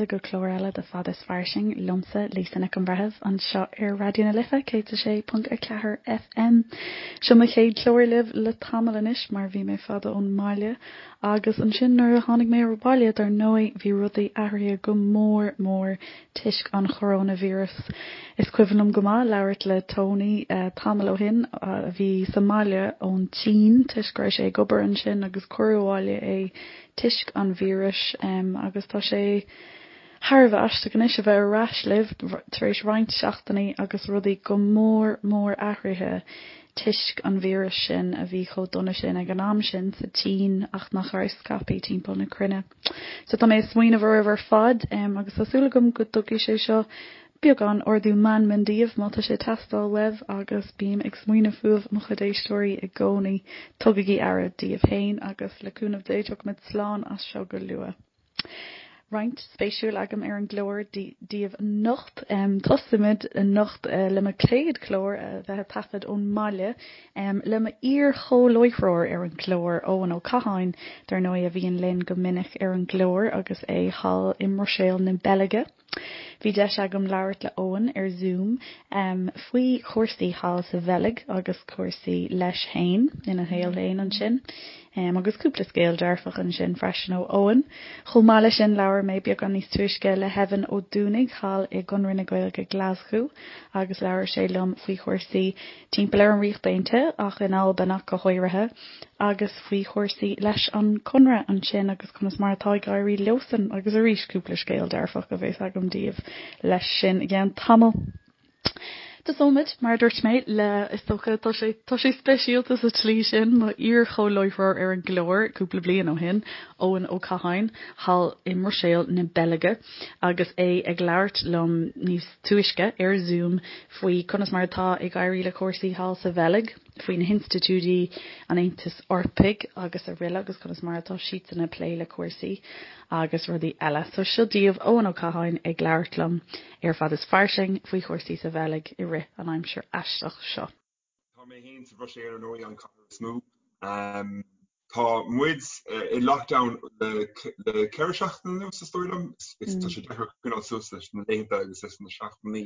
fáilte go clár eile de Fad is Fairsing liomsa, Lisa Nic an Bhreithimh, anseo ar Raidió na Life 106.4 FM. Seo mo chéad chlár libh le tamall anois mar bhí mé fada ón mbaile agus ansin nuair a tháinig mé abhaile dar ndóigh bhí rudaí athraithe go mór mór toisc an choróinvíreas. Is cuimhin liom go maith labhairt le Tony tamall ó shin a bhí sa mbaile ón tSín toisc go raibh sé ag obair ansin agus cuireadh abhaile é toisc an víris agus tá sé thar a bheith aisteach anois a bheith ar ais libh tar éis roinnt seachtainí agus rudaí go mór mór athraithe toisc an víris sin a bhí chomh dona sin ag an am sin sa tSín ach nach raibh scaipthe timpeall na cruinne. So tá mé ag smaoineamh oraibh ar fad agus tá súil agam go dtugfaidh sé seo beagán ardú meanman daoibh má tá sé ag teastáil uaibh agus bím ag smaoineamh fúibh mo chuid éisteoirí i gcónaí. Tugaigí aire daoibh féin agus le cúnamh Dé tiocfaimid slán as seo go luath. Roinnt spéisiúil agam ar an gclár daoibh anocht. Tosaímid anocht le mo chéad chlár a bheith á taifead ón mbaile. Le mo iar-chomhláithreoir ar an gclár, Eoin Ó Catháin, dar ndóigh, a bhíonn linn go minic ar an gclár agus é thall i mBruiséil na Beilge. Bhí deis agam labhairt le Eoin ar Zoom faoi chúrsaí thall sa Bheilg agus cúrsaí leis féin ina shaol féin ansin. Agus cúpla scéal dearfach ansin freisin ó Eoin. Chomh maith leis sin labhair mé beagán níos túisce le hEvan Ó Dúnaigh thall i gConradh na Gaeilge Glaschú agus labhair sé liom faoi chúrsaí timpeall ar an Ríocht Aontaithe ach in Albain ach go háirithe, agus faoi chúrsaí leis an Conradh ansin agus conas mar atá ag éirí leosan agus arís cúpla scéal dearfach a bheas agam daoibh leis sin i gceann tamaill. Tosóimid, mar a dúirt mé, le, is dócha, tá sé, tá sé speisialta sa tslí sin, mo iar-chomhláithreoir ar an gclár cúpla bliain ó shin, Eoin Ó Catháin, thall i mBruiséil na Beilge, agus é ag labhairt liom níos túisce ar Zoom faoi conas mar atá ag éirí le cúrsaí thall sa Bheilg, faoi na hinstitiúidí an Aontais Eorpaigh agus araile agus conas mar atá siadsan ag plé le cúrsaí agus rudaí eile. So seo daoibh Eoin Ó Catháin ag labhairt liom ar Fad is Fairsing faoi chúrsaí sa Bheilg i rith an aimsir aisteach seo. Tá mé féin sa Bhruiséil ar ndóigh, an chathair is mó. Tá muid i lockdown le 4 seachtaine anuas is dóigh liom. Tá sé deacair coinneáil suas leis na laethanta agus leis na seachtainí.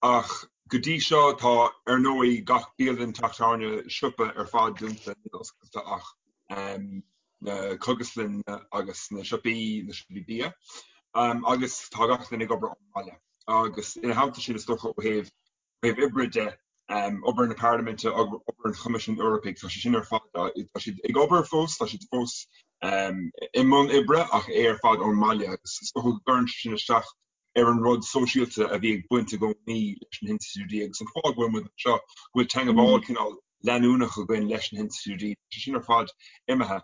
Ach go dtí seo tá ar ndóigh gach bialann, teach tábhairne, siopa ar fad dúnta, níl oscailte ach na cógaslanna agus na siopaí, na siopaí bia. Agus tá gach duine ag obair ón mbaile. Agus ina theannta sin is dócha ó thaobh Ó thaobh oibre de, obair na Parlaiminte, obair an Choimisiúin Eorpaigh, tá sé sin ar fad, tá siad ag obair fós, tá siad fós i mbun oibre ach é ar fad ón mbaile agus is dócha go gcuireann sé sin isteach ar an rud sóisialta a bhí ag baint i gcónaí leis na hinstitiúidí agus an fáth go bhfuil muid anseo, go bhfuil teagmháil cineál leanúnach againn leis na hinstitiúidí, tá sé sin ar fad imithe.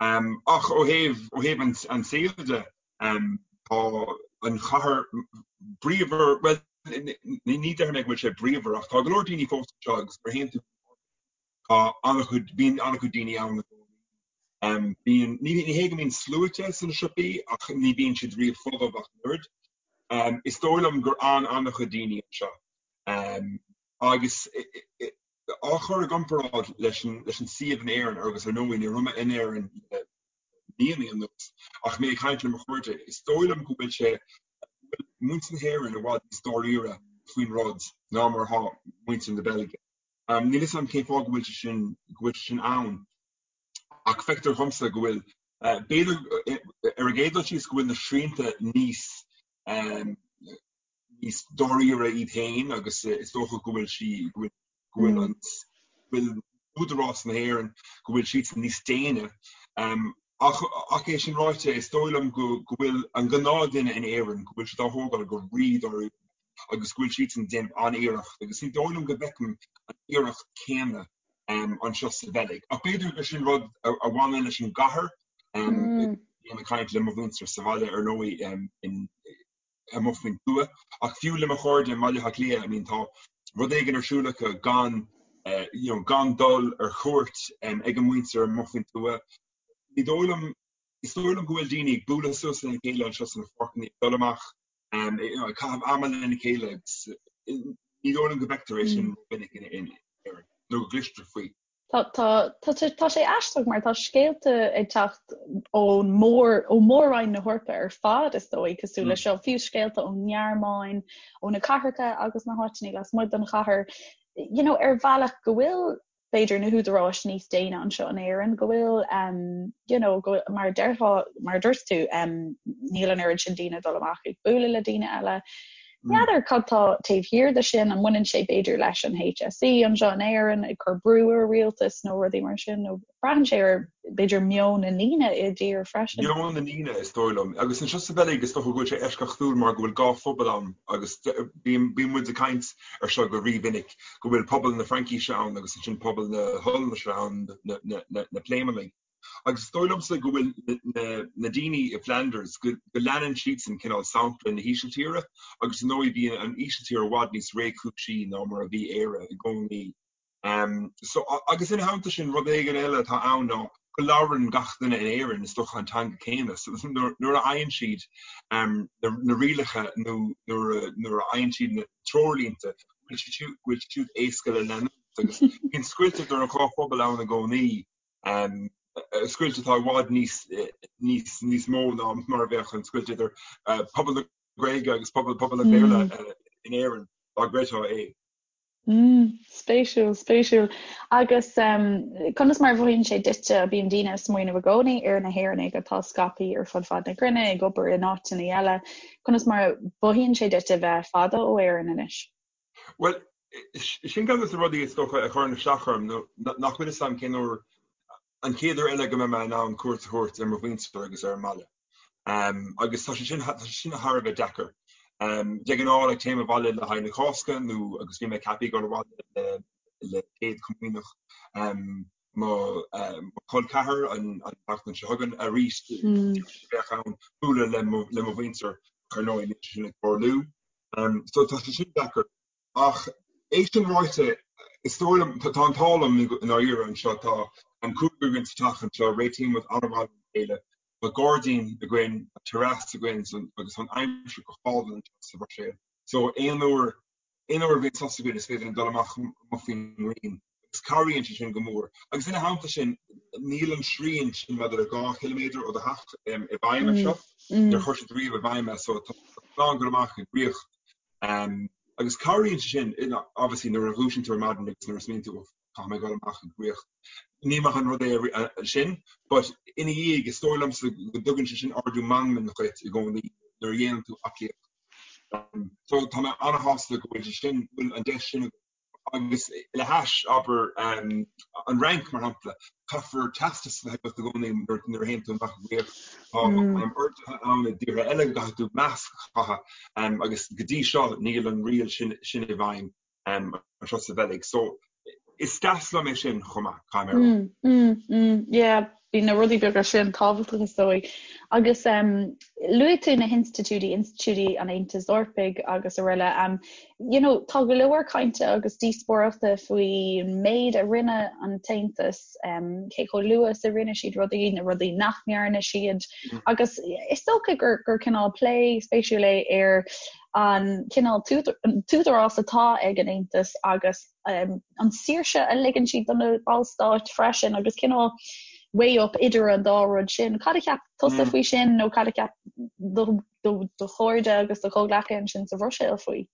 Ach ó thaobh, ó thaobh an saoil de, tá an chathair bríomhar, bhuel, ní déarfaidh mé go bhfuil sé bríomhar ach tá go leor daoine fós anseo agus nuair a théann tú tá an-chuid, bíonn an-chuid daoine ann i gcónaí. Bíonn, ní hé go mbíonn sluaite sna siopaí ach ní bhíonn siad riamh folamh ach an oiread. Is dóigh liom gur fhan an-chuid daoine anseo agus á chur i gcomparáid leis an suíomh in Éirinn, agus ar ndóigh ní raibh mé in Éirinn le míonna anuas, ach mé ag caint le mo chairde, is dóigh liom go bhfuil sé, go bhfuil muintir na hÉireann i bhfad níos dáiríre faoin rud ná mar atá muintir na Beilge. Níl a fhios agam cén fáth go bhfuil sé sin, go bhfuil sé sin ann, ach feictear dhomsa go bhfuil, b'fhéidir ar an gcéad dul síos go bhfuil na srianta níos, níos dáiríre iad féin agus is dócha go bhfuil sí, go bhfuil, go bhfuil an, go bhfuil údarás na hÉireann, go bhfuil siadsan níos déine. Ach, ach é sin ráite, is dóigh liom go, go bhfuil an gnáthdhuine in Éirinn, go bhfuil siad á thógáil go rí-dáiríre agus go bhfuil siadsan ag déanamh an-iarracht agus ní dóigh liom go bhfeicim an iarracht céanna anseo sa Bheilg. Ach b'fhéidir gur sin rud a bhaineann leis an gcathair. Bím ag caint le mo mhuintir sa bhaile ar ndóigh in, amuigh faoin tuath. Ach fiú le mo chairde i mBaile Átha Cliath, I mean tá rud éigin ar siúl acu gan you know gan dul ar cuairt ag an muintir amuigh faoin tuath. Ní dóigh liom, is dóigh liom go bhfuil daoine ag bualadh suas lena chéile anseo sna páirceanna, ag dul amach, you know, ag caitheamh ama lena chéile agus ní dóigh liom go bhfeictear é sin minic in Éirinn nó go gcloistear faoi. Tá, tá, tá, tá sé aisteach mar tá scéalta ag teacht ón mór, ó Mhór-Roinn na hEorpa ar fad is dóigh, cosúil le seo, fiú scéalta ón nGearmáin, ó na cathracha agus na háiteanna lasmuigh den chathair, you know, ar bhealach go bhfuil b'fhéidir na húdaráis níos déine anseo in Éirinn, go bhfuil um, you know, go, mar déarfá, mar a dúirt tú, um, níl an oiread sin daoine ag dul amach ag bualadh le daoine eile. N'fheadar cad tá taobh thiar de sin, an mbaineann sé b'fhéidir leis an HSE anseo in Éirinn ag cur brú ar rialtas nó rudaí mar sin, nó braitheann sé ar b'fhéidir meon na ndaoine i dtír freisin. Meon na ndaoine, is dóigh liom. Agus anseo sa Bheilg, is dócha go bhfuil sé eisceachtúil mar go bhfuil dhá phobal ann agus bíonn muid ag caint ar seo go rímhinic, go bhfuil pobal na Fraincise ann agus ansin pobal na hOllainnise ann, na Pléimeannaigh. Agus is dóigh liomsa go bhfuil na daoine i Flanders, go leanann siadsan cineál sampla na hÍsiltíre agus ar ndóigh bhí an Ísiltír i bhfad níos réchúisí ná mar a bhí Éire i gcónaí. So, agus ina theannta sin, rud éigin eile atá ann ná go labhrann gach duine in Éirinn is dócha an teanga céanna. So nuair a fhaigheann siad na rialacha nó nuair a fhaigheann siad na treoirlínte, go bhfuil siad éasca le leanúint agus bíonn scoilt idir an dhá phobal ann i gcónaí. Scoilt atá i bhfad níos, níos, níos mó ná mar a bheadh an scoilt idir pobal na Gaeilge agus pobal, pobal an Bhéarla in Éirinn, dá gcreidfeá é. Spéisiúil, spéisiúil. Agus conas mar a mhothaíonn sé duitse, bíonn daoine ag smaoineamh i gcónaí ar na hÉireannaigh atá scaipthe ar fud fad na cruinne, ag obair in áiteanna eile, conas mar a mhothaíonn sé duit a bheith fada ó Éirinn anois? Bhuel, sin ceann de na rudaí is dócha a chuireann isteach orm, nó nach bhfuil fhios a'm cén uair, an chéad uair eile go mbeidh mé in ann cuairt a thabhairt ar mo mhuintir agus ar an mbaile. Agus tá sé sin, tá sé sin thar a bheith deacair. De ghnáth, like, téim abhaile le haghaidh na Cásca nó agus bhí mé ceaptha ag dul abhaile le le Céad Chomaoineach mo chol ceathar an tseachtain seo chugainn arís bheadh ann bualadh le mo le mo mhuintir ar ndóigh níl sé sin ag tarlú. So tá sé sin deacair. Ach é sin ráite, is dóigh liom, tá an t-ádh liom i ndáiríre anseo, tá an cúigear againn sa teach anseo, réitíonn muid an-mhaith lena chéile, tá gairdín againn, tá terrace againn agus tá an aimsir go hálainn anseo sa Bhruiséil. So aon uair, aon uair a bhíonn sos againn is féidir linn dul amach amuigh faoin ngrian agus cabhraíonn sé sin go mór. Agus ina theannta sin, níl an srian sin maidir le 2 chiliméadar ó do theach i bhfeidhm anseo. Níor chuir siad riamh i bhfeidhm é so tá tú in ann dul amach ag rith. Agus cabhraíonn sé sin, obviously nuair a dhúisíonn tú ar maidin agus nuair a smaoiníonn tú caithfidh mé dul amach ag rith. Ní maith an rud é sin, but ina dhiaidh is dóigh liomsa go dtugann sé sin ardú meanman dhuit i gcónaí nuair a dhéanann tú aclaíocht. So tá mé an-shásta go bhfuil sé sin, go bhfuil an deis sin agam. Agus le hais, abair, an Fhrainc, mar shampla, caithfear teastas a bheith agat i gcónaí nuair a théann tú amach ag rith. Tá orduithe ann i dtíortha eile go gcaithfidh tú masc a chaitheamh agus go dtí seo níl an riail sin sin i bhfeidhm anseo sa Bheilg. So is deas liom é sin chomh maith, caithfidh mé a rá. Mm, yeah. Bíonn na rudaí beaga sin tábhachtach is dóigh. Agus luaigh tú na hinstitiúidí, institiúidí an Aontais Eorpaigh agus araile. You know, tá go leor cainte agus díospóireachta faoin méid a rinne an tAontas, cé chomh luath is a rinne siad rudaí, na rudaí nach ndearna siad. Agus is dócha gur gur cineál plé spéisiúil é ar an cineál t-údarás atá ag an Aontas agus an saoirse a ligeann siad do na ballstáit freisin agus cineál weigh up idir an dá rud sin. Cad a cheap tusa faoi sin nó cad a cheap do do chairde agus do chomhghleacaithe ansin sa Bhruiséil faoi?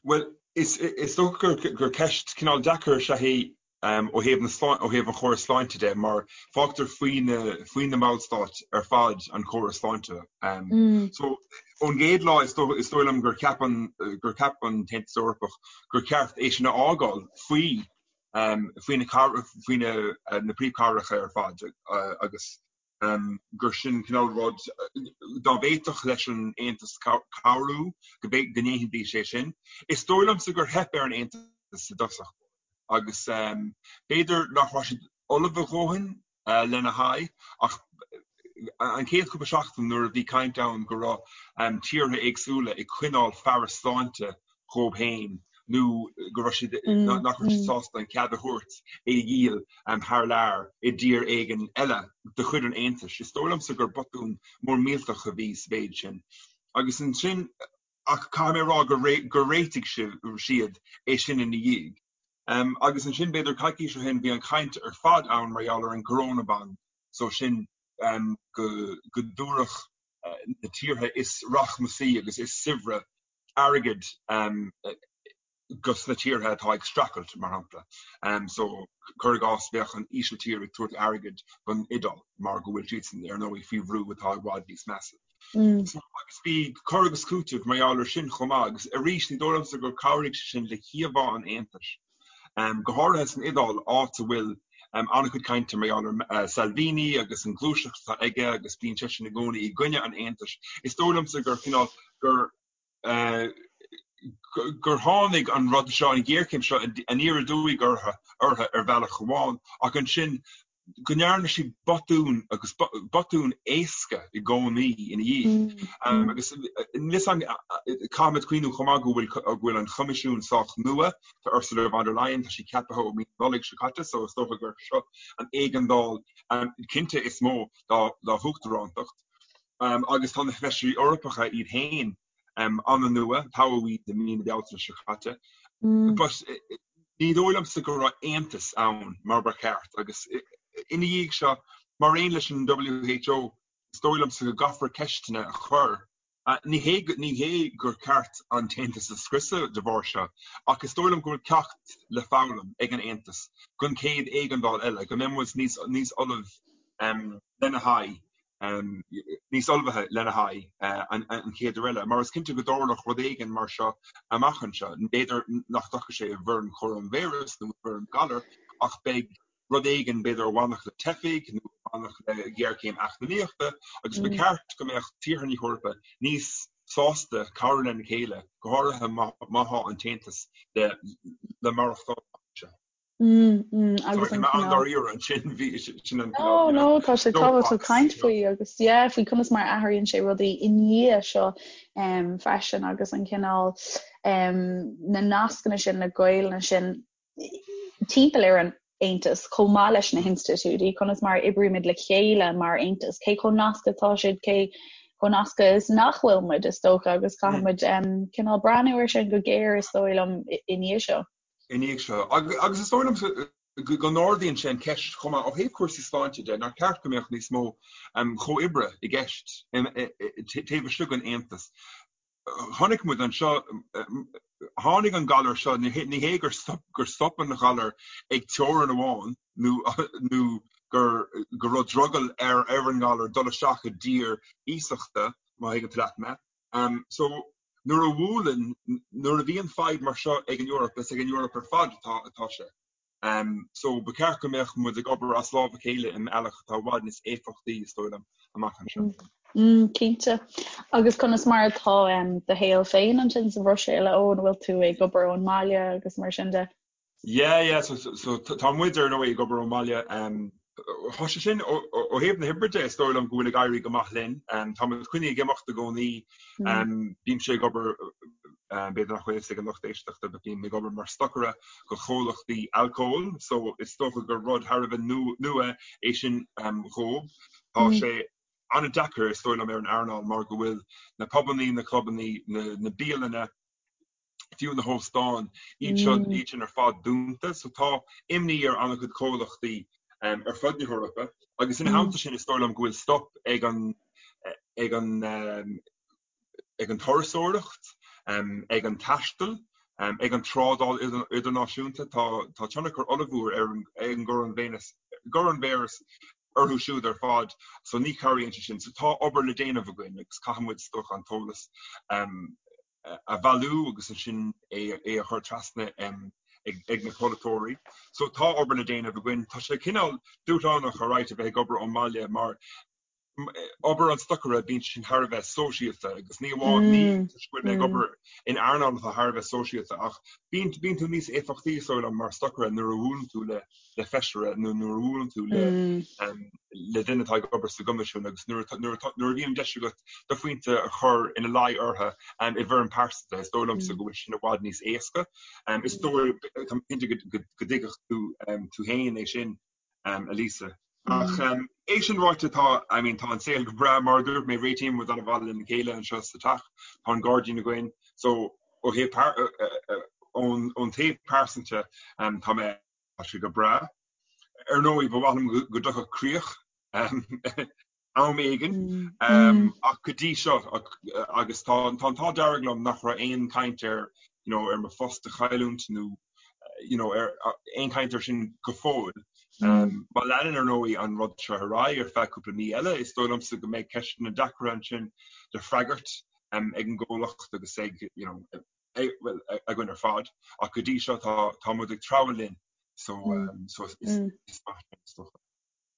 Bhuel, is is dócha gur gur ceist cineál deacair is ea í ó thaobh na ó thaobh an chórais sláinte de mar fágtar faoi na faoi na ballstáit ar fad an córas sláinte. So ón gcéad lá is dóigh is dóigh liom gur cheap an gur cheap an tAontas Eorpach gur cheart é sin a fhágáil faoi faoi na faoi na na príomhchathracha ar fad agus gur sin cineál rud dá bhféadfadh leis an Aontas cabhrú go ndéanfaidís é sin. Is dóigh liomsa gur theip ar an Aontas i dtosach agus b'fhéidir nach raibh siad ullamh a dhóthain lena haghaidh ach an chéad chúpla seachtain nuair a bhí caint ann go raibh tíortha éagsúla ag coinneáil fearas sláinte dhóibh féin nó go raibh siad, nach raibh siad sásta an cead a thabhairt é a dhíol thar lear i dtír éigin eile de chuid an Aontais. Is dóigh liomsa gur botún mór millteach a bhí sa mhéid sin. Agus ansin, ach caithfidh mé a rá gur réitigh siad é sin ina dhiaidh. Agus ansin b'fhéidir coicís ó shin bhí an chaint ar fad ann mar gheall ar an gcoronabond, so sin go go dtabharfadh na tíortha is rachmasaí agus is saibhre airgead dos na tíortha atá ag streachailt, mar shampla. So, cuir i gcás, bheadh an Ísiltír ag tabhairt airgid don Iodáil mar go bhfuil siadsan, ar ndóigh, faoi bhrú atá i bhfad níos measa. So, agus bhí cur agus cúiteamh mar gheall air sin chomh maith, agus arís, ní dóigh liomsa gur chabhraigh sé sin le híomhá an Aontais, go háirithe san Iodáil, áit a bhfuil an-chuid cainte mar gheall ar Salvini agus an ghluaiseacht atá aige agus bíonn seisean i gcónaí i gcoinne an Aontais. Is dóigh liomsa gur cineál, gur gur tháinig an rud seo, an ghéarchéim seo, aniar aduaidh orthu ar bhealach amháin, ach ansin go ndearna siad botún agus botún éasca i gcónaí ina dhiaidh. Agus caithfimid cuimhniú chomh maith go bhfuil go bhfuil an Choimisiún sách nua, tá Ursula von der Leyen, tá sí ceaptha ó mí na Nollag seo caite, so is dócha gur seo an éigeandáil cinnte is mó dá huachtarántacht. Agus tá na Feisirí Eorpacha iad féin an-nua, toghadh iad i mí na Bealtaine seo caite. But ní dóigh liomsa go raibh aontas ann mar ba cheart agus ina dhiaidh seo, mar aon leis an WHO, is dóigh liomsa go gcaithfear ceisteanna a chur. Ní hé ní hé gur ceart an tAontas a scriosadh de bharr seo, ach is dóigh liom go bhfuil ceacht le foghlaim ag an Aontas don chéad éigeandáil eile, go mbeidh muid níos níos ullamh lena haghaidh. níos ullmhaithe lena haghaidh an chéad uair eile, mar is cinnte go dtarlódh rud éigin mar seo amach anseo. B'fhéidir nach dtiocfaidh sé i bhfoirm choróinvíreas nó i bhfoirm galar, ach beidh rud éigin, b'fhéidir a bhainfeadh le teifigh nó a bhainfeadh le géarchéim eacnamaíochta, agus ba cheart go mbeadh tíortha na hEorpa níos sásta cabhrú lena chéile, go háirithe má tá an tAontas le maireachtáil amach anseo. Agus an an-dáiríre ansin bhí sin an No, no, tá sé tábhachtach caint faoi agus yeah, faoi conas mar a athraíonn sé rudaí i ndiaidh seo um, freisin agus an cineál um, na nascanna sin, na gaolta sin timpeall ar an Aontas chomh maith leis na hinstitiúidí, conas mar a oibrímid le chéile mar Aontas, cé chomh nasctha atá siad, cé chomh nasctha is nach bhfuil muid is dócha agus caithfidh muid um, cineál breathnú air sin go géar is dóigh liom i ndiaidh seo. i ndiaidh seo. Agus is dóigh liomsa go n-ardaíonn sé an cheist chomh maith ó thaobh cúrsaí sláinte de, nár cheart go mbeadh níos mó comhoibre i gceist taobh istigh den Aontas. Chonaic muid anseo, tháinig an galar seo, ní hé gur stop an galar ag teorainn amháin nó gur go raibh drogall ar an ngalar dul isteach i dtír iasachta, má thuigeann tú leat mé. So, nuair a bhuaileann, nuair a bhíonn fadhb mar seo ag an Eoraip, is ag an Eoraip ar fad atá atá sé. So, ba cheart go mbeadh muid ag obair as lámh a chéile i mbealach atá i bhfad níos éifeachtaí, is dóigh liom, amach anseo. Cinnte. Agus conas mar atá do shaol féin ansin sa Bhruiséil, a Eoin, an bhfuil tú ag obair ón mbaile agus mar sin de? Yeah, yeah, so, so tá muid ar ndóigh ag obair ón mbaile. Um, tá sé sin ó thaobh na hoibre de, is dóigh liom go bhfuil ag éirí go maith linn. Um, tá muid coinnithe ag imeacht i gcónaí. Mm. Um, bímse ag obair um, b'fhéidir nach bhfuil fhios ag an lucht éisteachta, but bím ag obair mar stocaire do chomhlachtaí alcóil, so is dócha gur rud thar a bheith nua é sin um, dhóibh. Tá mm. sé an-deacair is dóigh liom ar an earnáil mar go bhfuil na pubannaí, na clubannaí, na, na bialanna, fiú na hóstáin, iad seo, iad sin ar fad dúnta. So tá imní ar an-chuid comhlachtaí ar fud na hEorpa agus ina theannta sin is dóigh liom go bhfuil stop ag an ag an ag an turasóireacht, ag an taisteal, ag an trádáil idirnáisiúnta. Tá tá tionchar ollmhór ar an ag an gcoróinvíreas orthu siúd ar fad so ní chabhraíonn sé sin. So tá obair le déanamh againn agus caithfidh muid is dócha an t-eolas a bhailiú agus ansin é a chur trasna ag na polaiteoirí. So tá obair le déanamh againn. Tá sé cineál dúshlánach alright a bheith ag obair ón mbaile mar obair an stocaire bíonn sin thar a bheith sóisialta agus ní amháin ní toisc go bhfuil mé ag obair in earnáil atá thar a bheith sóisialta ach bíonn bíonn tú níos éifeachtaí is dóigh liom mar stocaire nuair a bhuaileann tú le le feisire nó nuair a bhuaileann tú le le duine atá ag obair sa gCoimisiún agus nuair nuair nuair a bhíonn deis agat do phointe a chur ina luí orthu i bhfoirm pearsanta, is dóigh liomsa go bhfuil sin i bhfad níos éasca. Is dóigh tá cinnte go dtuigfeadh tú tú féin é sin, a Lisa. Ach é sin ráite tá I mean tá an saol go breá mar a dúirt mé réitíonn muid an-mhaith lena chéile anseo sa teach, tá an gairdín againn, so ó thaobh. Ón taobh pearsanta tá mé, tá sé go breá. Ar ndóigh, ba mhaith liom go dtiocfadh críoch am éigin ach go dtí seo agus tá an t-ádh dearg liom nach raibh aon chaint ar you know ar mo phost a chailliúint nó you know ar aon chaint ar sin go fóill. Má leanann ar ndóigh an rud seo ar aghaidh ar feadh cúpla mí eile is dóigh liomsa go mbeidh ceisteanna deacra ansin le freagairt ag an gcomhlacht agus ag you know bhuel againn ar fad ach go dtí seo tá tá muid ag treabhadh linn so so is is maith sin is dócha.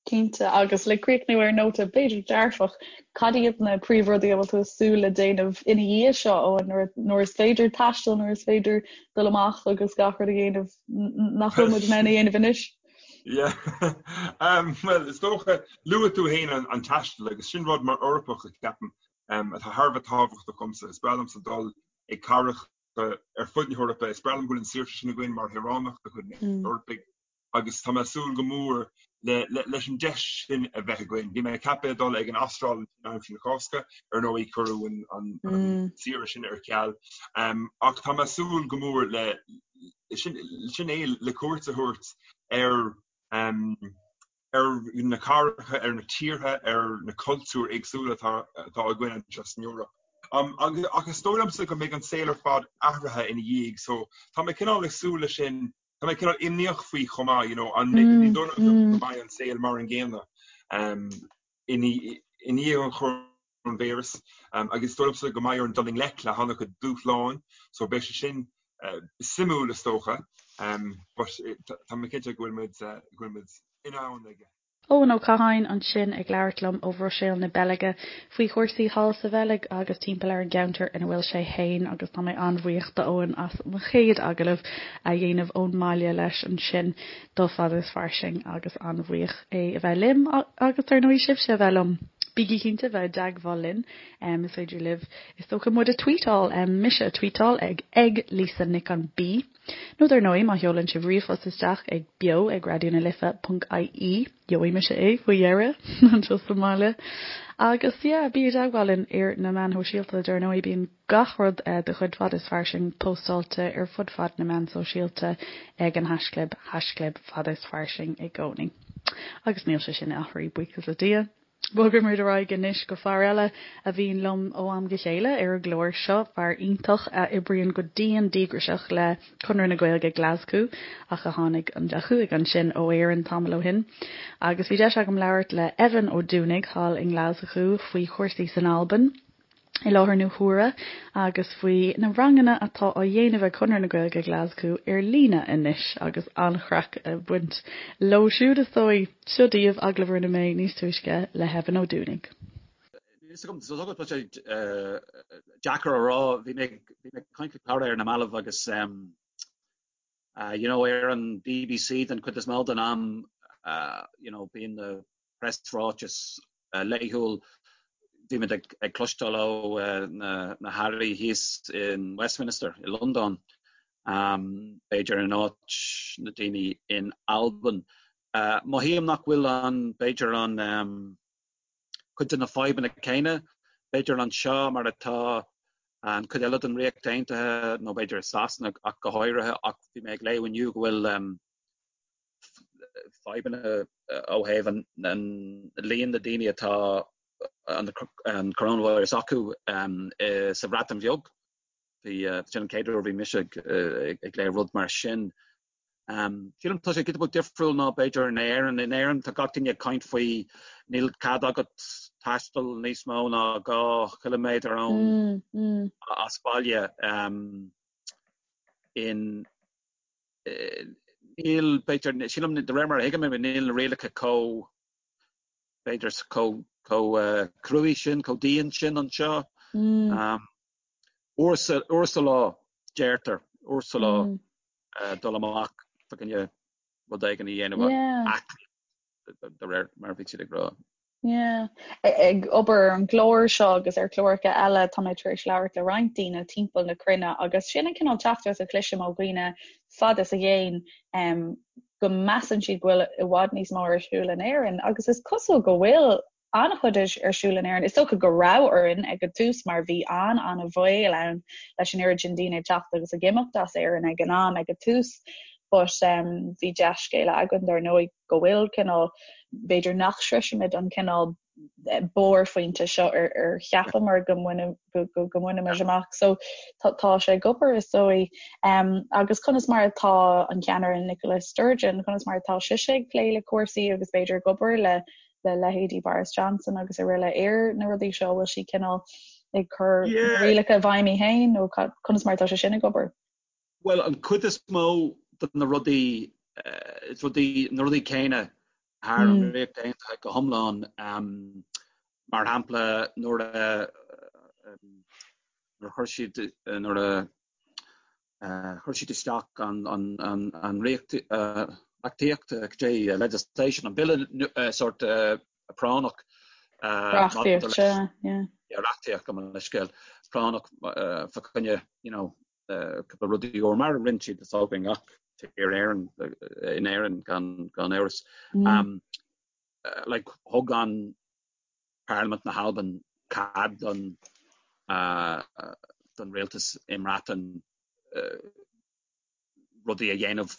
Cinnte, agus le críochnú ar nóta b'fhéidir dearfach, cad iad na príomhrudaí a bhfuil tú ag súil le déanamh ina dhiaidh seo, Eoin, nuair nuair is féidir taisteal, nuair is féidir dul amach agus gach rud a dhéanamh nach bhfuil muid in ann a dhéanamh anois? Yeah. Um, well, is dócha luaigh tú féin an, an taisteal agus sin rud mar Eorpach a ceapaim um, atá thar a bheith tábhachtach domsa. Is breá liomsa dul ag cathracha ar fud na hEorpa. Is breá liom go bhfuil an saoirse sin againn mar shaoránach de chuid na hEorpaigh agus tá mé ag súil go mór leis an deis sin a bheith againn. Bhí mé ceaptha dul ag an Astráil aimsir na Cásca, ar ndóigh cuireadh an saoire sin ar ceal. Ach tá mé ag súil go mór le sin é le cuairt a thabhairt ar ar na cathracha, ar na tíortha, ar na cultúir éagsúla atá atá againn anseo san Eoraip. Ach is dóigh liomsa go mbeidh an saol ar fad athraithe ina dhiaidh so tá mé cineál ag súil leis sin, tá mé cineál imníoch faoi chomh maith, you know, an ní dóigh liom go mbeidh an saol mar an gcéanna i ndiaidh an choróinvíreas agus is dóigh liomsa go mbeidh orainn dul i ngleic le han-chuid dúshláin so beidh sé sin suimiúil is dócha but tá mé cinnte go bhfuil muid go bhfuil muid in ann aige. Eoin Ó Catháin ansin ag labhairt liom ó Bhruiséil na Beilge faoi chúrsaí thall sa Bheilg agus timpeall ar an gceantar ina bhfuil sé fhéin agus tá mé an-bhuíoch d'Eoin as mo chéad agallamh a dhéanamh ón mbaile leis ansin do Fada is Fairsing agus an-bhuíoch é a bheith liom agus ar ndóigh sibhse a bheith liom. Bígí cinnte bheith i dteagmháil linn. Is féidir libh is dócha muid a tweetáil, mise a tweetáil ag ag Lisa Nic an B. Nó dar ndóigh má sheolann sibh ríomhphost isteach ag beo ag raidió na life ponc ie, gheobhaidh mise é faoi dheireadh anseo sa mbaile. Agus yeah, bí i dteagmháil linn ar na meáin shóisialta, dar ndóigh bíonn gach rud de chuid Fada is Fairsing póstáilte ar fud fad na meán sóisialta ag an haischlib, haischlib Fada is Fairsing i gcónaí. Agus níl sé sin athraithe, buíochas le Dia. Bogfaidh muid ar aghaidh anois go fear eile a bhíonn liom ó am go chéile ar an gclár seo, fear iontach a oibríonn go dian díograiseach le Conradh na Gaeilge Glaschú ach a tháinig, a chuaigh ansin ó Éirinn tamall ó shin. Agus bhí deis agam labhairt le Evan Ó Dúnaigh thall i nGlaschú faoi chúrsaí san Albain. i láthair na huaire agus faoi na ranganna atá á dhéanamh ag Conradh na Gaeilge Glaschú ar líne anois agus an-chraic ag baint leo siúd is dóigh. Seo daoibh agallamh a rinne mé níos túisce le hEvan Ó Dúnaigh. Níl fhios agam, tá sé deacair a rá, bhí mé ag caint le cara ar na mallaibh agus You know, ar an BBC den chuid is mó den am, you know, bíonn na preasráitis laethúil, bímid ag cloisteáil ó na hairí thíos in Westminster i Londain, b'fhéidir in áit na daoine in Albain. Mothaím nach bhfuil an, b'fhéidir an, cuid de na fadhbanna céanna, b'fhéidir anseo mar atá an chuid eile den Ríocht Aontaithe nó b'fhéidir i Sasana ach go háirithe ach bhí mé ag léamh inniu go bhfuil fadhbanna ó thaobh an líon na daoine atá an coronavirus acu sa Bhreatain Bheag. Bhí sin an chéad uair a bhí mise ag léamh rud mar sin. Sílim tá sé giota beag difriúil ná b'fhéidir in Éirinn. In Éirinn tá gach duine ag caint faoi níl cead agat taisteal níos mó ná 2 chiliméadar ón as baile. In níl b'fhéidir sílim de réir mar a thuigim níl na rialacha chomh b'fhéidir chomh chomh cruaidh sin, chomh dian sin anseo. Uair sa lá, deirtear, uair sa lá. dul amach fá choinne rud éigin a dhéanamh aclaíocht de réir mar a bhí siad ag rá. Yeah. Ag obair ar an gclár seo agus ar chláracha eile tá mé tar éis labhairt le roinnt daoine timpeall na cruinne agus sin an cineál teachtaireacht a chloisim ó dhaoine fad is i gcéin um, go measann siad go bhfuil i bhfad níos mó ar siúl in Éirinn agus is cosúil go bhfuil. an-chuid ar siúl in Éirinn. Is dócha go raibh orainn ag an tús mar bhí an-an-bhaol ann leis an oiread sin daoine ag teacht agus ag imeacht as Éirinn ag an am ag an tús but um, bhí dea-scéala againn dar ndóigh go bhfuil cineál b'fhéidir nach sroisfimid an cineál eh, barrphointe seo ar, ar cheapamar go mbainfimis amach. So tá, tá sé ag obair is dóigh. Um, agus conas mar atá an ceannaire Nicola Sturgeon, conas mar atá sise ag plé le cúrsaí agus b'fhéidir ag obair le le leithéidí Boris Johnson agus araile ar na rudaí seo, bhfuil sí cineál ag cur rialacha i bhfeidhm í féin nó conas mar atá sé sin ag obair? Bhuel, an chuid is mó de na rudaí, is rudaí, na rudaí céanna thar an Ríocht Aontaithe go hiomlán. Mar shampla, nuair a nuair a chuir siad nuair a Chuir siad isteach an reachtaíocht, legislation, an bille sórt práinneach. Reachtaíocht, sea, yeah. Reachtaíocht, gabh mo leithscéal, práinneach fá choinne, you know, cúpla rudaí úr, mar a rinne siad is dócha i ngach tír Éireann, in Éirinn gan amhras. Like, thug an Parlaimint na hAlban cead don don rialtas i mBreatain rudaí a dhéanamh,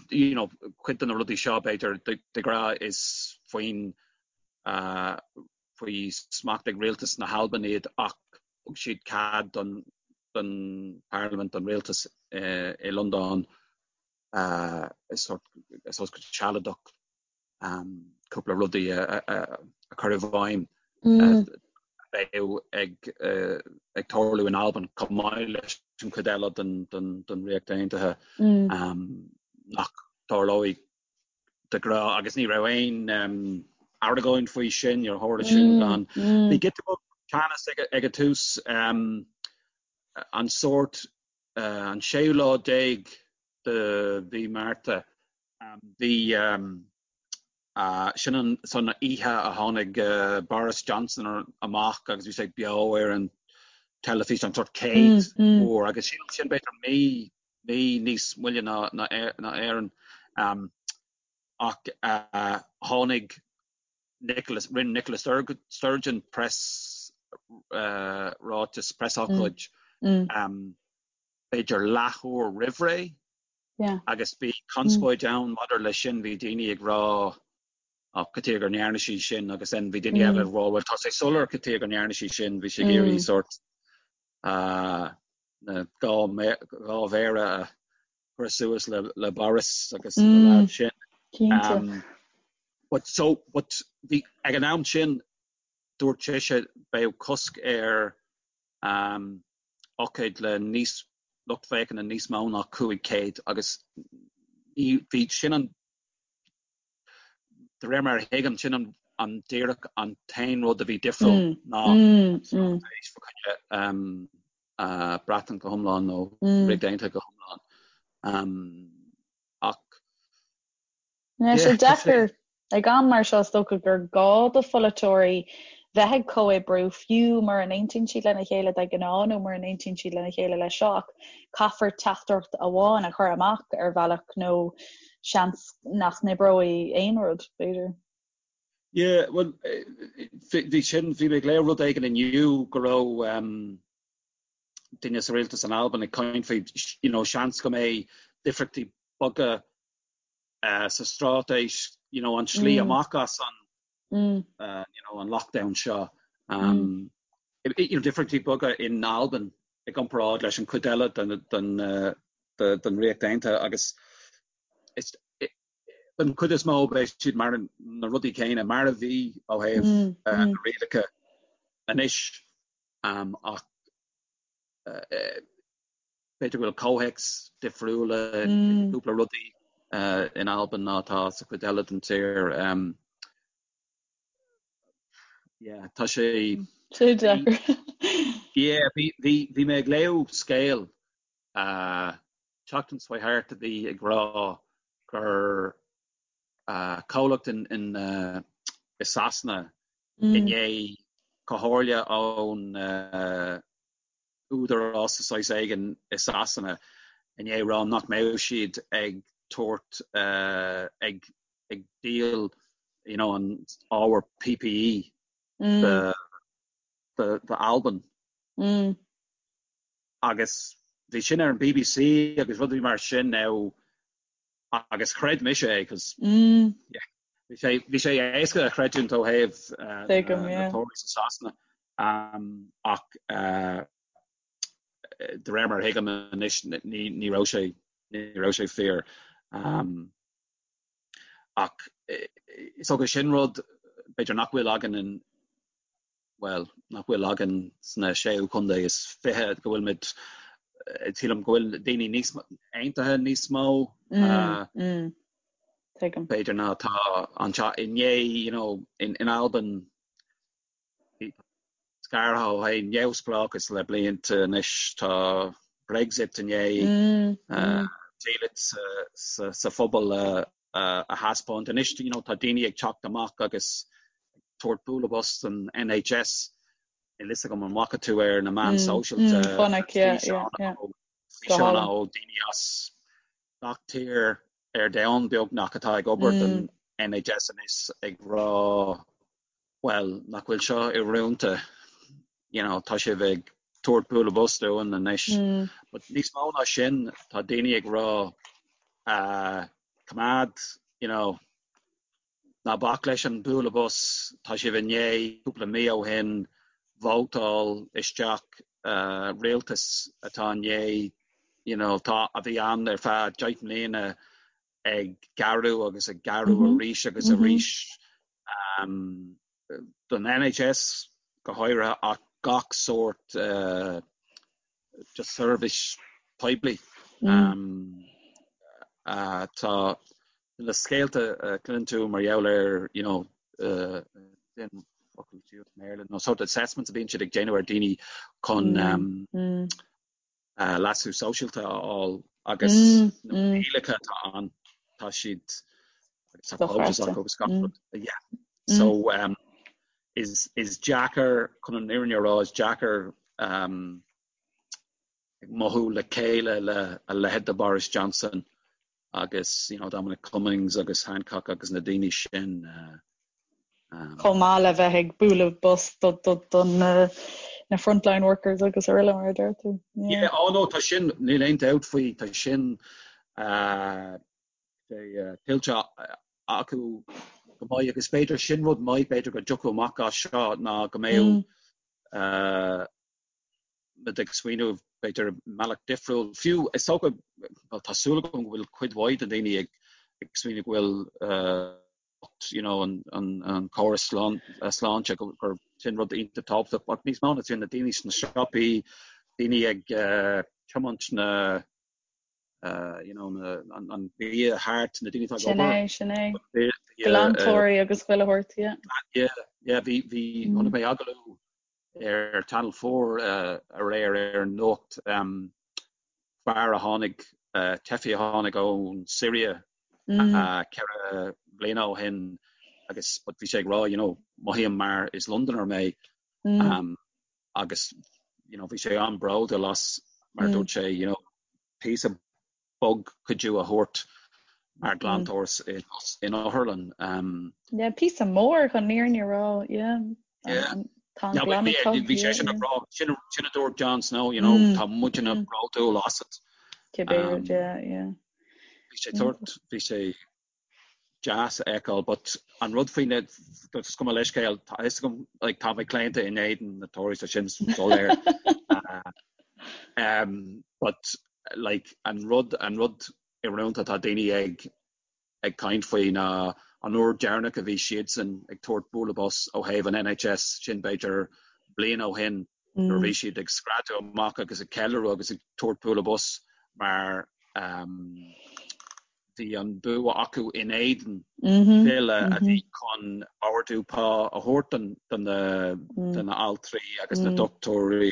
you know, cuid de na rudaí seo b'fhéidir de ghnáth is faoin faoi smacht ag rialtas na hAlban iad ach thug siad cead don don Parlaimint, don rialtas i Londain sórt go sealadach cúpla rudaí a chur i bhfeidhm a bheadh ag tarlú in Albain chomh maith leis an chuid eile den Ríocht Aontaithe nach dtarlóidh de ghnáth agus ní raibh aon argóint faoi sin, níor tharla sin gan. Bhí giota beag teannas ag an tús an sórt an séú lá déag de mhí Márta Bhí sin an san oíche a tháinig Boris Johnson amach agus bhí sé beo ar an teilifís an sórt chéad uair agus sin sin b'fhéidir mí mí níos moille ná ná Éirinn ach tháinig Nicola rinne Nicola Sturgeon press ráiteas preasócáid b'fhéidir leathuair roimh ré Agus bhí conspóid ann maidir leis sin, bhí daoine ag rá oh cad chuige go ndearna sí sin agus then bhí daoine eile ag rá well tá sé soiléir cad chuige go ndearna sí sin, bhí sí ag iarraidh sórt na dhá mhéara a chur suas le le Boris agus na lads sin. Cinnte. But so, but bhí ag an am sin dúirt sise beidh cosc ar ócáid le níos lucht féachana níos mó ná 500 agus ní bhí sin an de réir mar a thuigim sin an an díreach an t-aon rud a bhí difriúil ná straitéis fá choinne Breatain go hiomlán nó Ríocht Aontaithe go hiomlán. Ach Tá sé deacair ag am mar seo is dócha gur gá do pholaiteoirí bheith ag comhoibriú fiú mura n-aontaíonn siad lena chéile de ghnáth nó mura n-aontaíonn siad lena chéile leis seo ach caithfear teachtaireacht amháin a chur amach ar bhealach nó seans nach n-oibreoidh aon rud, b'fhéidir. Yeah, bhuel, bhí sin, bhí mé ag léamh rud éigin inniu go raibh duine sa rialtas in Albain ag caint faoi, you know, seans go mbeidh difríochtaí beaga sa straitéis, you know, an slí amach as an, you know, an lockdown seo. You know, difríochtaí beaga in Albain i gcomparáid leis an chuid eile den, den, den Ríocht Aontaithe agus is, den chuid is mó beidh siad mar na rudaí céanna mar a bhí ó thaobh na rialacha anois ach B'fhéidir go bhfuil comhthéacs difriúla i gcúpla rudaí in Albain ná atá sa chuid eile den tír. Yeah, tá sé. Sé deacair. Yeah, bhí, bhí, bhí mé ag léamh scéal tseachtain seo thart a bhí ag rá gur comhlacht in, in, i Sasana i ndiaidh comhairle ón údarás de shaghas éigin i Sasana i ndiaidh rá nach mbeadh siad ag tabhairt ag ag díol you know an ábhar PPE. do do Albain. Agus bhí sin ar an BBC agus rudaí mar sin now agus chreid mise é cos yeah bhí sé bhí sé éasca a chreidiúint ó thaobh na Tories i Sasana ach de réir mar a thuigim anois ní ní raibh sé ní raibh sé fíor. Ach is dócha sin rud b'fhéidir nach bhfuil againn in bhuel, nach bhfuil againn sna séú contae is 20, go bhfuil muid, sílim go bhfuil daoine níos aontaithe níos mó b'fhéidir ná atá anseo inné, you know, in, in Albain scartha ó thaobh neamhspleáchas le blianta anois, tá Brexit i ndiaidh diallait sa, sa phobal a a thaispeáint. Anois, you know, tá daoine ag teacht amach agus ag tabhairt bualadh bos don NHS. Níl fhios agam an bhfaca tú ar na meáin sóisialta físeáin ó daoine as gach tír ar domhan beagnach atá ag obair don NHS anois ag rá bhuel, nach bhfuil seo íorónta, you know, tá sibh ag tabhairt bualadh bos dúinn anois. But níos mó ná sin, tá daoine ag rá, uh, coimeád, you know, ná bac leis an bualadh bos, tá sibh i ndiaidh cúpla mí ó shin vótáil isteach uh, rialtas atá i ndiaidh, you know, tá, a bhí ann ar feadh 10 mbliana ag gearradh agus ag gearradh arís agus arís don NHS go háirithe ach gach sórt just seirbhís poiblí. Tá na scéalta a chluineann tú mar gheall ar you know focal i mBéarla nó sort assessments a bhíonn siad ag déanamh ar daoine chun leasú sóisialta a fháil agus na rialacha atá ann, tá siad agus tá quotas acu agus gach rud. Yeah. So um, is, is deacair chun an fhírinne a rá, is deacair um, ag mothú le chéile le a leithéid de Boris Johnson agus you know, Dominic Cummings agus Hancock agus na daoine sin. Uh, um, Chomh maith le bheith ag bualadh bos do, do, do na, na frontline workers agus araile mar a deir tú. Yeah. Yeah, oh no, tá sin, níl aon dabht faoi, tá sin uh, uh, tuillte acu go maith agus b'fhéidir sin rud maith b'fhéidir go dtiocfadh amach as seo ná go mbeadh mm. uh, muid ag smaoineamh b'fhéidir mbealach difriúil. Fiú is dócha, bhuel tá súil agam go bhfuil cuid mhaith de dhaoine ag ag smaoineamh go bhfuil you know an an an córas sláinte gur gur sin rud iontach tábhachtach ach níos mó ná sin na daoine sna siopaí, daoine ag tiomáint na you know na an an bia thart, na daoine atá ag obair. Sin é, sin é. Glantóirí agus chuile shórt, yeah. Yeah, yeah, bhí bhí chonaic mé agallamh ar Channel 4 aréir ar an nuacht, fear a tháinig, teifigh a tháinig ón Siria 4 bliana ó shin agus but bhí sé ag rá you know mothaím mar is Londoner mé agus you know bhí sé an-bhródúil as mar dúirt sé you know píosa beag cuidiú a thabhairt mar ghlantóir in otharlann. Yeah, píosa mór chun an fhírinne a rá, yeah. Yeah. Tá an glanadh tub, Bhí sé sin ag rá, sin a dúirt Jon Snow, you know, tá muidne bródúil asat. Cibé rud, yeah, yeah. Bhí sé tabhairt, bhí sé deas a fheiceáil but an rud faoi na is cuma leithscéal tá fhios agam like tá mé claonta in éadan na Tories tá sin soiléir um, but like an rud an rud íorónta tá daoine ag ag caint faoi ná an uair deireanach a bhí siadsan ag tabhairt bualadh bos ó thaobh an NHS sin b'fhéidir bliain ó shin nuair a bhí siad ag screadadh amach agus ag ceiliúradh agus ag tabhairt bualadh bos mar um, Bhí an bua acu in éadan bille a bhí chun ardú pá a thabhairt do na altraí agus na dochtúirí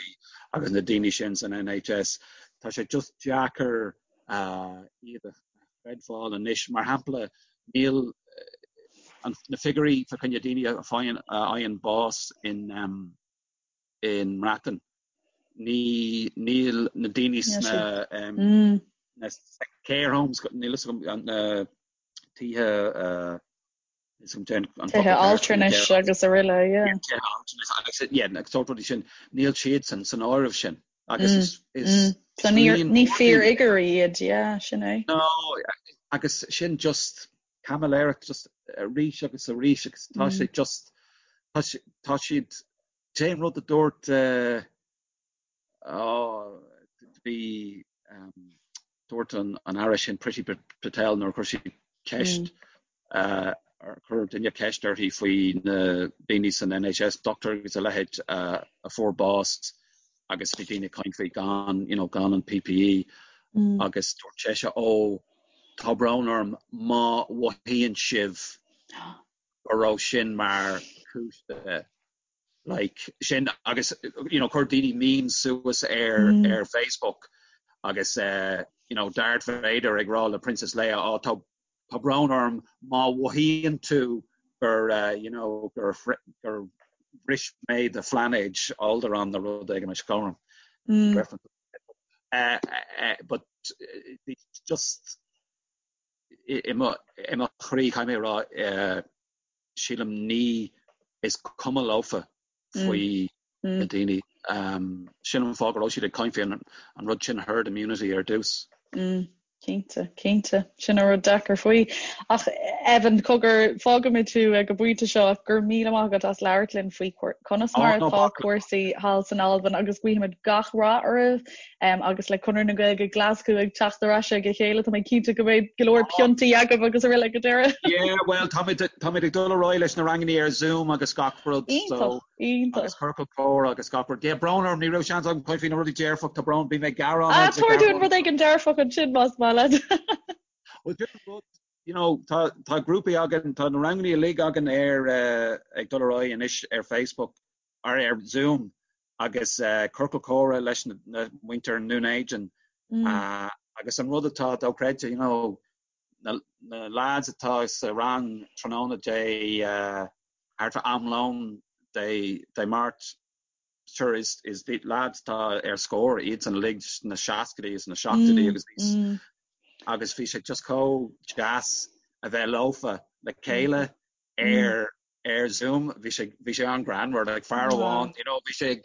agus na daoine sin san NHS. Tá sé just deacair iad a chreidbheáil anois. Mar shampla, níl na figiúirí fá choinne daoine a fhaigheann bás in i mBreatain. Ní, níl na daoine sna, na care homes, níl fhios agam, na tithe. Tithe altranais agus araile, yeah. Tithe altranais agus, yeah, agus sórt rudaí sin, níl siadsan san áireamh sin. Agus is, is So ní, ní fíorfhigiúirí iad, yeah, sin é. No, agus sin just caimiléireacht just arís agus arís agus tá sé just, tá tá siad, cén rud a dúirt, uh, oh, bhí, um, Dúirt an Aire sin Priti Patel nuair a chuir sí ceist, chuir duine ceist uirthi faoi na daoine san NHS, dochtúir agus a leithéid a fuair bás agus bhí daoine ag caint faoi gan, you know, gan an PPE agus dúirt sise ó tá brón orm má mhothaíonn sibh go raibh sin mar chúis de like sin agus you know chuir daoine memes suas ar mm. ar Facebook agus uh, you know Darth Vader ag rá le Princess Leia oh, tá tá brón orm má mhothaíonn tú gur uh, you know gur gur bhris mé do phláinéad Alderaan nó rud éigin mar sin mm. uh, uh, but uh, just i mo chroí caithfidh mé a rá uh, sílim ní is cuma leofa faoi na daoine. Sin an fáth go raibh siad ag caint faoi an rud sin herd immunity ar dtús. Cinnte, cinnte. Sin an rud deacair faoi. Ach Evan, cogar, fágfaimid tú ag an bpointe seo ach go raibh míle maith agat as labhairt linn faoi conas mar atá cúrsaí thall san Albain agus guímid gach rath oraibh agus le Conradh na Gaeilge Glaschú ag teacht ar ais ag a chéile, tá mé cinnte go mbeidh go leor piontaí agaibh agus araile ag an deireadh. Yeah, well, táimid táimid ag dul ar aghaidh leis na ranganna ar Zoom agus gach rud, so Iontach, iontach. agus ciorcal comhrá agus gach rud. Yeah, brón orm, ní raibh seans agam caint faoi na rudaí dearfach, tá brón, bhí mé ag gearán Ah, tabhair dúinn rud éigin dearfach ansin más maith leat. Well, rud, you know, tá tá grúpaí againn, tá na ranganna uilig againn ar uh, ag dul ar aghaidh anois ar Facebook ar ar Zoom agus ciorcal comhrá leis na muintir i nDún Éideann agus an rud atá dochreidte, you know, na na lads atá sa rang tráthnóna Dé thart fá am lóin Dé Dé Máirt, sure is is lads atá ar scor iadsan uilig sna seascaidí is na seachtóidí agus níos agus bhí sé just chomh deas a bheith leofa le chéile ar ar Zoom, bhí sé bhí sé an-ghreannmhar, like fear amháin, you know, bhí sé ag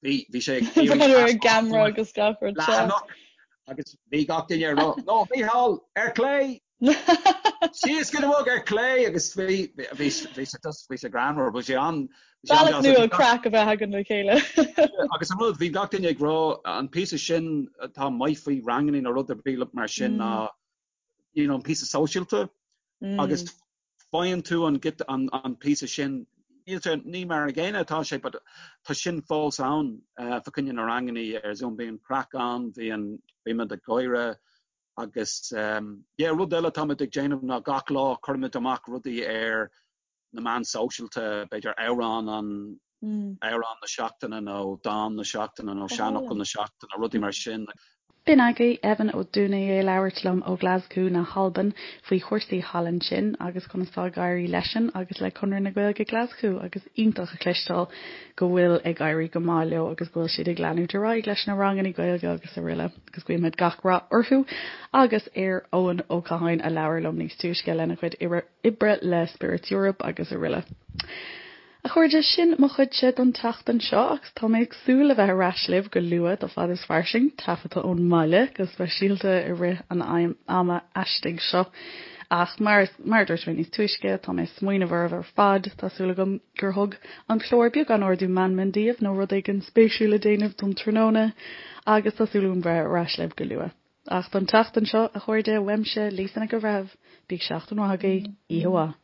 bhí bhí sé ag iarraidh ar an gceamara agus gach rud leathanach agus bhí gach duine ag rá, no Mícheál ar clé! Síos go bog ar clé agus bhí bhí bhí sé just bhí sé greannmhar, bhí sé an Bealach nua craic a bheith againn le chéile. Agus an rud, bhí gach duine ag rá an píosa sin atá maith faoi ranganna nó rud ar bith mar sin ná you know, an píosa sóisialta agus faigheann tú an an an píosa sin, níl sé, ní mar an gcéanna atá sé but tá sin fós ann fa choinne na rangannaí ar Zoom, bíonn craic ann, bíonn, bímid ag gáire agus yeah rud eile atáimid ag déanamh ná gach lá cuirimid amach rudaí ar na meáin sóisialta, b'fhéidir amhrán an, amhrán na seachtaine nó dán na seachtaine nó seanfhocal na seachtaine, rudaí mar sin. B'in agaibh Evan Ó Dúnaidh ag labhairt liom ó Ghlaschú na hAlban faoi chúrsaí thall ansin agus conas tá ag éirí leisean agus le Conradh na Gaeilge Glaschú agus iontach a chloisteáil go bhfuil ag éirí go maith leo agus go bhfuil siad ag leanúint ar aghaidh leis na ranganna Gaeilge agus araile agus guímid gach rath orthu agus ar Eoin Ó Catháin a labhair liom níos túisce lena chuid oibre le Spirits Europe agus araile. A chairde, sin mo chuidse don tseachtain seo agus tá mé ag súil le bheith ar ais libh go luath do Fad is Fairsing, taifeadta ón mbaile, go speisialta i rith an ama aistigh seo. Ach mar mar a dúirt mé níos túisce, tá mé ag smaoineamh oraibh ar fad, tá súil agam gur thug an clár beagán ardú meanman daoibh nó rud éigin spéisiúil le déanamh don tráthnóna agus tá súil agam bheith ar ais libh go luath. Ach don tseachtain seo, a chairde, uaimse, Lisa Nic an Bhreithimh, bíodh seachtain mhaith agaibh, oíche mhaith.